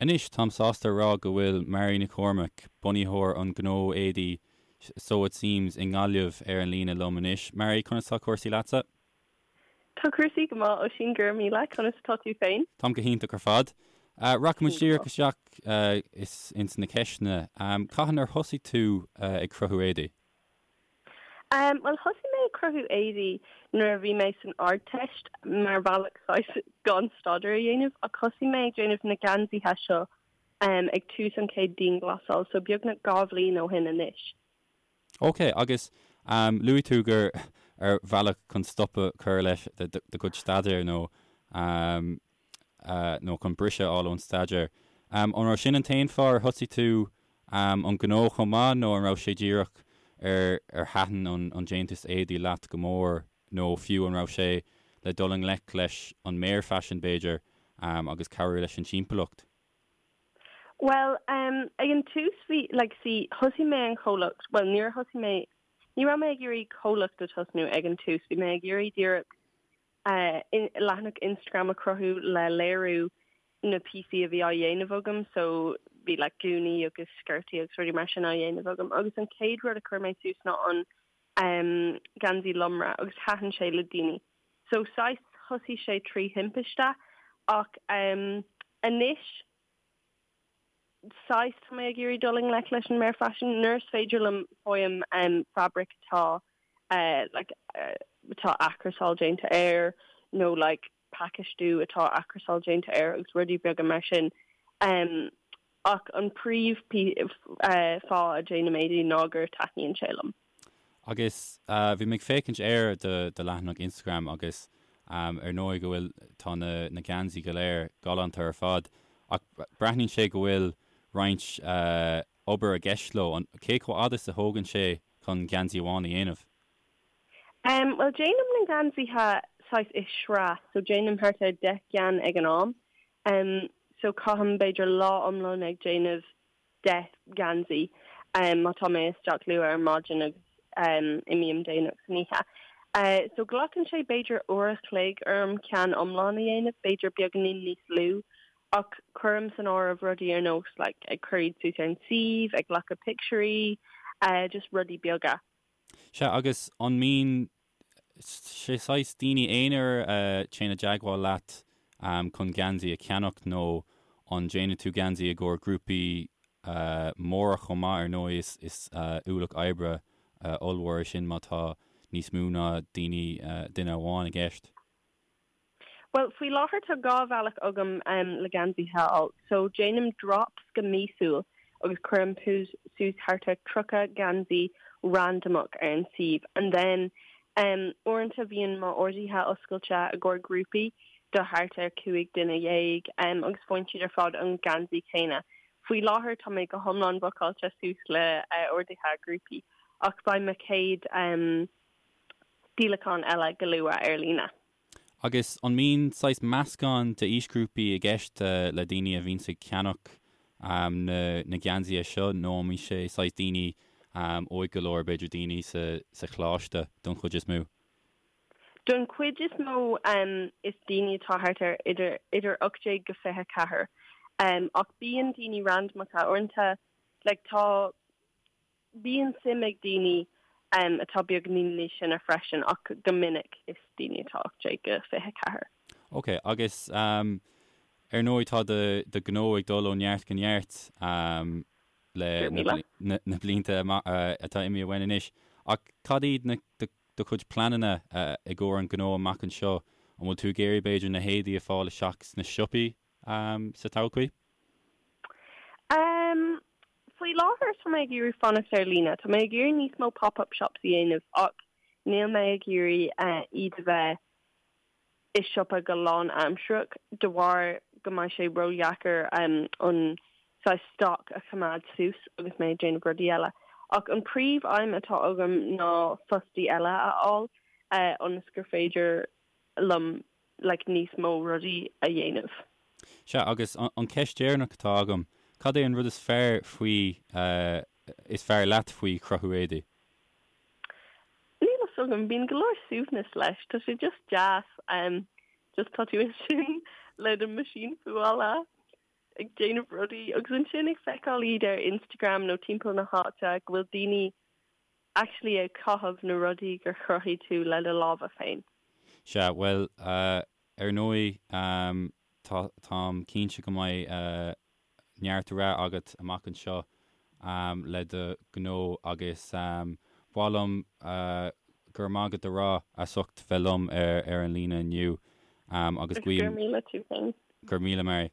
Anois, táim sásta a rá go bhfuil Mary Nic Chormaic, bunaitheoir an ghnó éadaí Sew It Seems i nGaillimh ar an líne liom anois. Mary, conas tá cúrsaí leatsa? Tá cúrsaí go maith, Oisín, go raibh míle. Conas atá tú féin? Táim go hiontach ar fad. Rachaidh muid díreach isteach ins na ceisteanna. Cathain ar thosaigh tú ag cruthú éadaí? Bhuel, thosaigh mé ag cruthú éadaí nuair a bhí mé san Ardteist mar bhealach saghas gan staidéar a dhéanamh ach thosaigh mé ag déanamh na geansaithe seo ag tús an chéad dianghlasáil, so beagnach 2 bhliain ó shin anois. Ok, agus luaigh tú gur ar bhealach chun stop a chur leis do chuid staidéir nó nó chun briseadh a fháil ón staidéar. An raibh sin an t-aon fáth ar thosaigh tú an gnó chomh maith nó an raibh sé díreach ar ar thaitin an déantús éadaí leat go mór nó fiú an raibh sé le dul i ngleic leis an mbéarfhaisean b'fhéidir agus cabhrú leis an timpeallacht? Bhuel, ag an tús bhí, like, see, thosaigh mé an chomhlacht, bhuel níor thosaigh mé, ní raibh mé ag iarraidh comhlacht a tosnú ag an tús, bhí mé ag iarraidh díreach leathanach Instagram a chruthú le léiriú na píosaí a bhí á dhéanamh agam so bhí like gúnaí agus sciortaí agus rudaí mar sin á dhéanamh agam agus an chéad rud a chuir mé suas ná an um, geansaí lomra agus thaitin sé le daoine. So saghas thosaigh sé trí thimpiste ach um, anois saghas tá mé ag iarraidh dul i ngleic leis an mbéarfhaisean nuair is féidir liom faighim um, fabraic atá uh, like, uh, atá athchúrsáil déanta air nó like, pacáistiú atá athchúrsáil déanta air agus rudaí beaga mar sin. Um, ach an príomh uh, fáth a déanaim éadaí ná gur taitníonn sé liom. Agus bhí mé ag féachaint ar do do leathanach Instagram agus ar ndóigh go bhfuil, tá na na geansaí go léir galánta ar fad ach breathnaíonn sé go bhfuil roinnt obair i gceist leo. An, cé chomh fhada is a thógann sé chun geansaí amháin a dhéanamh? Bhuel déanaim na geansaithe saghas i sraith so déanaim thart ar 10 gceann ag an am. So caithim b'fhéidir lá iomlán ag déanamh 10 geansaí má tá mé isteach luath ar maidin agus imím déanach san oíche. So glacann sé b'fhéidir uair a chloig orm ceann iomlán a dhéanamh, b'fhéidir beagáinín níos lú, ach cuirim san áireamh rudaí ar nós like ag cur iad suas ar an suíomh, ag glacadh pictiúirí, just rudaí beaga. Sea, agus an mbíonn sé saghas daoine aonair a téann i dteagmháil leat chun geansaí a cheannach nó an déanann tú geansaí i gcomhair grúpaí móra chomh maith? Ar ndóigh is is ualach oibre ollmhór é sin má tá níos mó ná daoine duine amháin i gceist. Bhuel, faoi láthair tá 2 bhealach agam le geansaithe a fháil. So, déanaim drops go míosúil agus cuirim suas thart ar 30 geansaí randamach ar an suíomh. And then, um, uaireanta bíonn m'orduithe oscailte i gcomhair grúpaí do thart ar 15 duine um, agus faigheann siad ar fad an geansaí céanna. Faoi láthair tá mé go hiomlán bookáilte suas le uh, orduithe grúpaí ach beidh mo chéad um, díolachán eile go luath ar líne. Agus an mbíonn saghas meascán d'aoisghrúpaí i gceist le daoine a bhíonns ag ceannach na geansaithe seo nó an mbíonn sé saghas daoine óig go leor, b'fhéidir daoine sa choláiste don chuid is mó? Don chuid is mó is daoine atá thart ar idir idir 18 go 24 ach bíonn daoine randamacha uaireanta like tá Bíonn suim ag daoine atá beagáinín níos sine freisin ach go minic is daoine atá 18-24. Ok, agus ar ndóigh tá do do ghnó ag dul ó neart go neart le na blianta atá imithe uainn anois ach cad iad na do chuid pleananna i gcomhair an ghnó amach anseo? An bhfuil tú ag iarraidh b'fhéidir na héadaí a fáil isteach sna siopaí sa todhchaí? Faoi láthair tá mé ag iarraidh fanacht ar líne. Tá mé ag iarraidh níos mó pop-up shops a dhéanamh ach níl mé ag iarraidh iad a bheith i siopa go lánaimsearach de bharr go mbeidh sé ródheacair an saghas stoc a choimeád suas agus mé ag déanamh rudaí eile. Ach an príomh aidhm atá agam ná fostaí eile a fháil ionas gur féidir liom like níos mó rudaí a dhéanamh. Sea, agus an cheist dheireanach atá agam, cad é an rud is fearr faoi, is fearr leat faoi chruthú éadaí? Níl a fhios agam, bíonn go leor suaimhneas leis, tá sé just deas, just tá tú ansin le do meaisín fuála. ag déanamh rudaí agus ansin ag feiceáil iad ar Instagram nó timpeall na háite go bhfuil daoine actually ag caitheamh na rudaí gur chruthaigh tú le do lámha féin. Sea, bhuel, ar ndóigh, tá, táim cinnte go mbeidh neart rath agat amach anseo le do ghnó agus ba mhaith liom go raibh maith agat a rá as ucht bheith liom ar an líne inniu agus guím. Go raibh míle tú féin. Go raibh míle Mary.